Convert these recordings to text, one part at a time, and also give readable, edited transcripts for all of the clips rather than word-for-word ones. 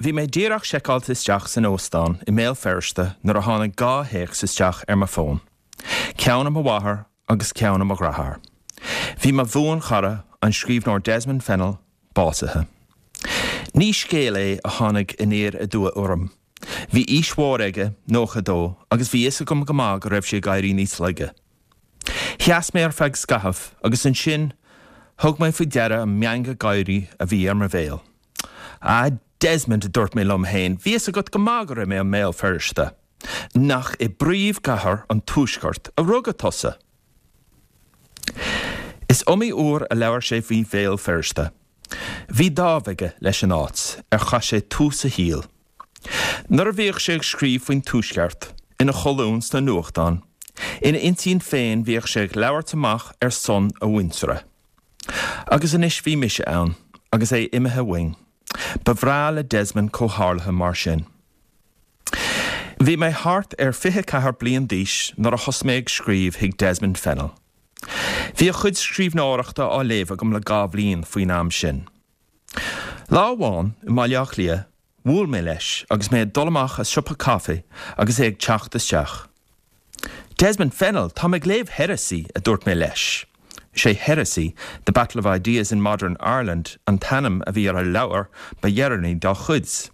Bhí mé díreach seiceáilte isteach san óstán i mBéal Feirste nuair a tháinig 2 théacs isteach ar mo fón. Ceann ó mo mháthair agus ceann ó mo dheartháir. Bhí mo bhuanchara, an scríbhneoir Desmond Fennell, básaithe. Ní scéal é a tháinig aniar aduaidh orm. Bhí aois mhór aige, 92, agus bhí fhios agam go maith go raibh sé ag éirí níos laige. Sheas mé ar feadh scaithimh agus ansin thug mé faoi deara an meangadh gáirí a bhí ar mo bhéal. Ah, Desmond, a dúirt mé liom féin, bhí fhios agat go maith go raibh mé i mBéal Feirste. Nach i bpríomhchathair an Tuaiscirt a rugadh tusa? Is iomaí uair a labhair sé faoi Bhéal Feirste. Bhí dáimh aige leis an áit ar chaith sé tús a shaoil. Nuair a bhíodh sé ag scríobh faoin Tuaisceart ina cholúin sna nuachtáin, ina intinn féin bhíodh sé ag labhairt amach ar son a mhuintire. Agus anois bhí mise ann, agus é imithe uainn. Ba bhreá le Desmond comhtharluithe mar sin. Bhí mé thart ar 24 bliain d'aois nuair a thosaigh mé ag scríobh chuig Desmond Fennell. Bhí a chuid scríbhneoireachta á léamh agam le 2 bhliain faoin am sin. Lá amháin i mBaile Átha Cliath, bhuail mé leis agus mé ag dul amach as siopa caife agus é ag teacht isteach. Desmond Fennell, táim ag léamh Heresy, a dúirt mé leis. Is é Heresy, The Battle of Ideas in Modern Ireland an t-ainm a bhí ar an leabhar ba dheireanaí dá chuid.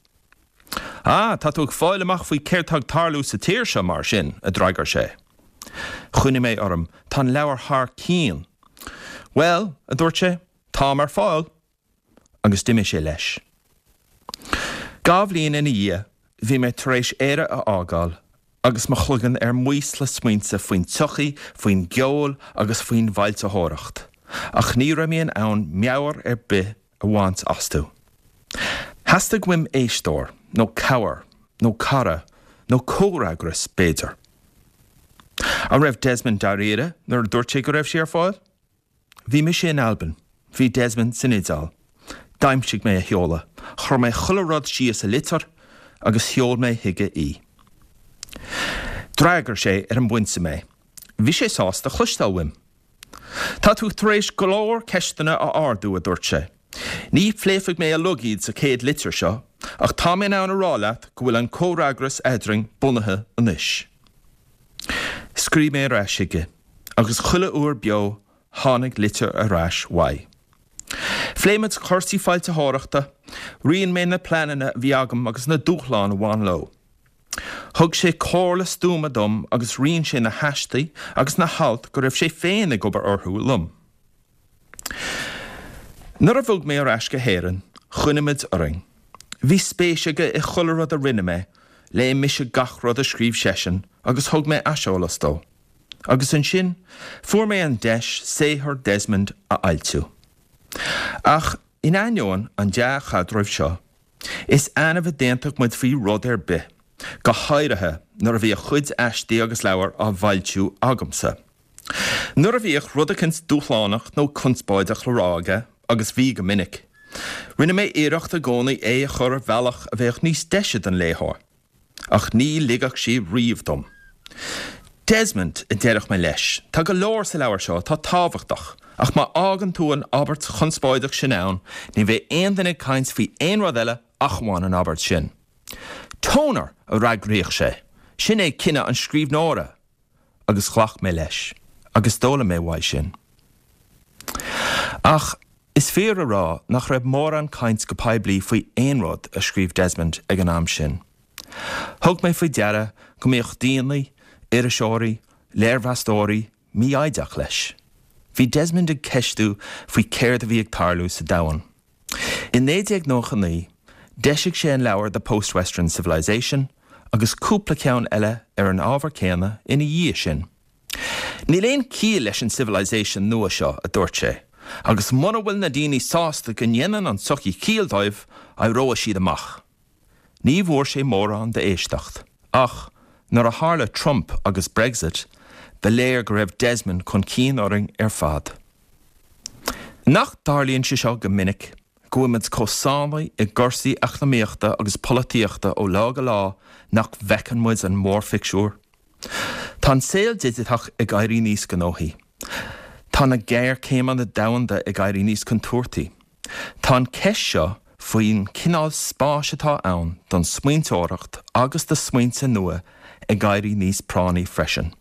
Ah, tá tú ag fáil amach faoi céard tá ag tarlú sa tír seo, mar sin, a d'fhreagair sé. Choinnigh mé orm, tá an leabhar thar cionn. Bhuel, a dúirt sé, táim ar fáil! Agus d'imigh sé leis. 2 bhliain ina dhiaidh, bhí mé tar éis Éire a fhágáil agus mo chloigeann ar maos le smaointe faoin tsochaí, faoin gceol agus faoin bhfoilsitheoireacht, ach ní raibh mé in ann meabhair ar bith a bhaint astu. Theastaigh uaim éisteoir, nó cabhair, nó cara, nó comhfhreagras, b'fhéidir. An raibh Desmond dáiríre nuair a dúirt sé go raibh sé ar fáil? Bhí mise in Albain, bhí Desmond san Iodáil. D'aimsigh mé a sheoladh, chuir mé chuile rud síos i litir agus sheol mé chuige í. D'fhreagair sé ar an bpointe mé. Bhí sé sásta cloisteáil uaim. Tá tú tar éis go leor ceisteanna a ardú, a dúirt sé. Ní phléifidh mé uilig iad sa chéad litir seo, ach tá mé in ann a rá leat go bhfuil an comhfhreagras eadrainn bunaithe anois. Scríobh mé ar ais chuige, agus chuile uair beo tháinig litir ar ais uaidh. Phléigh muid cúrsaí foilsitheoireachta, roinn mé na pleananna a bhí agam agus na dúshláin a bhain leo. Thug sé comhairle stuama dom agus roinn sé na haistí agus na hailt go raibh sé féin ag obair orthu liom. Nuair a bhog mé ar ais go hÉirinn, choinnigh muid orainn. Bhí spéis aige i chuile rud a rinne mé, léigh mise gach rud a scríobh seisean agus thug mé aiseolas dó. Agus ansin, fuair mé an deis saothar Desmond a fhoilsiú. Ach in ainneoin an dea-chaidrimh seo, Is annamh a d'aontaigh muid faoi rud ar bith, go háirithe nuair a bhí a chuid aistí agus leabhar á bhfoilsiú agamsa. Nuair a bhíodh rud eicint dúshlánach nó conspóideach le rá aige, agus bhí go minic, rinne mé iarracht i gcónaí é a chur ar bhealach a bheadh níos deise don léitheoir. Ach ní ligfeadh sé riamh dom. Desmond, a deireadh mé leis, tá go leor sa leabhar seo atá tábhachtach, ach má fhágann tú an abairt chonspóideach sin ann, ní bheidh aon duine ag caint faoi aon rud eile ach amháin an abairt sin. Toner! a fhreagraíodh sé. Sin é cinneadh an scríbhneora! Agus ghlac mé leis. Agus d'fhoghlaim mé uaidh sin. Ach is fíor a rá nach raibh mórán caint go poiblí faoi aon rud a scríobh Desmond ag an am sin. Thug mé faoi deara go mbíodh daoine, iriseoirí, léirmheastóirí, mífhoighdeach leis. Bhí Desmond ag ceistiú faoi céard a bhí ag tarlú sa domhan. I 1999, d'eisigh sé an leabhar The Post-Western Civilization agus cúpla ceann eile ar an ábhar céanna ina dhiaidh sin. Níl aon chiall leis an civilization nua seo, a dúirt sé, agus mura bhfuil na daoine sásta go ndéanann an tsochaí ciall dóibh, éireoidh siad amach. Ní bhfuair sé mórán d'éisteacht, ach nuair a tharla Trump agus Brexit, ba léir go raibh Desmond chun cinn orainn ar fad. Nach dtarlaíonn sé seo go minic, go bhfuil muid chomh sáinnithe i gcúrsaí eacnamaíochta agus polaitíochta ó lá go lá nach bhfeiceann muid an mórphictiúr? Tá an saol digiteach ag éirí níos gnóthaí. Tá na géarchéimeanna domhanda ag éirí níos contúirtí. Tá an cheist seo faoin cineál spáis atá ann don smaointeoireacht agus do smaointe nua ag éirí níos práinní freisin.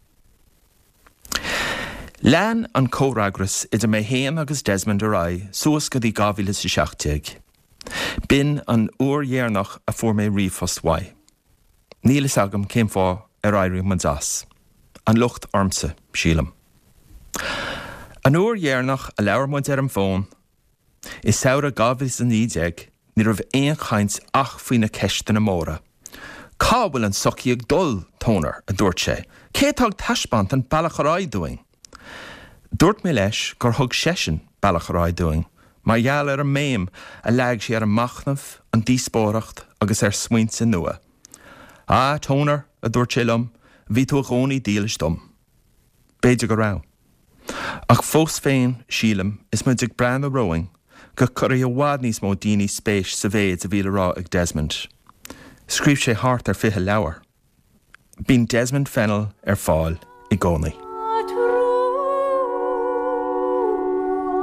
Lean an comhfhreagras idir mé féin agus Desmond ar aghaidh suas go dtí 2017. B'in an uair dheireanach a fuair mé ríomhphost uaidh. Níl fhios agam cén fáth ar éirigh muid as. An locht ormsa, sílim. An uair dheireanach a labhair muid ar an bhfón, i samhradh 2019, ní raibh aon chaint ach faoi na ceisteanna móra. Cá bhfuil an tsochaí ag dul, Toner? a dúirt sé. Cé atá ag taispeáint an bealach ar aghaidh dúinn? Dúirt mé leis gur thug seisean bealach ar aghaidh dúinn mar gheall ar an mbéim a leag sé ar an machnamh, an díospóireacht agus ar smaointe nua. Ah, Toner, a dúirt sé liom, bhí tú i gcónaí dílis dom. B'fhéidir go raibh. Ach fós féin, sílim, is muid ag breathnú romhainn, go gcuirfidh i bhfad níos mó daoine spéis sa mhéid a bhí le rá ag Desmond. Scríobh sé thart ar 20 leabhar. Bíonn Desmond Fennell ar fáil i gcónaí.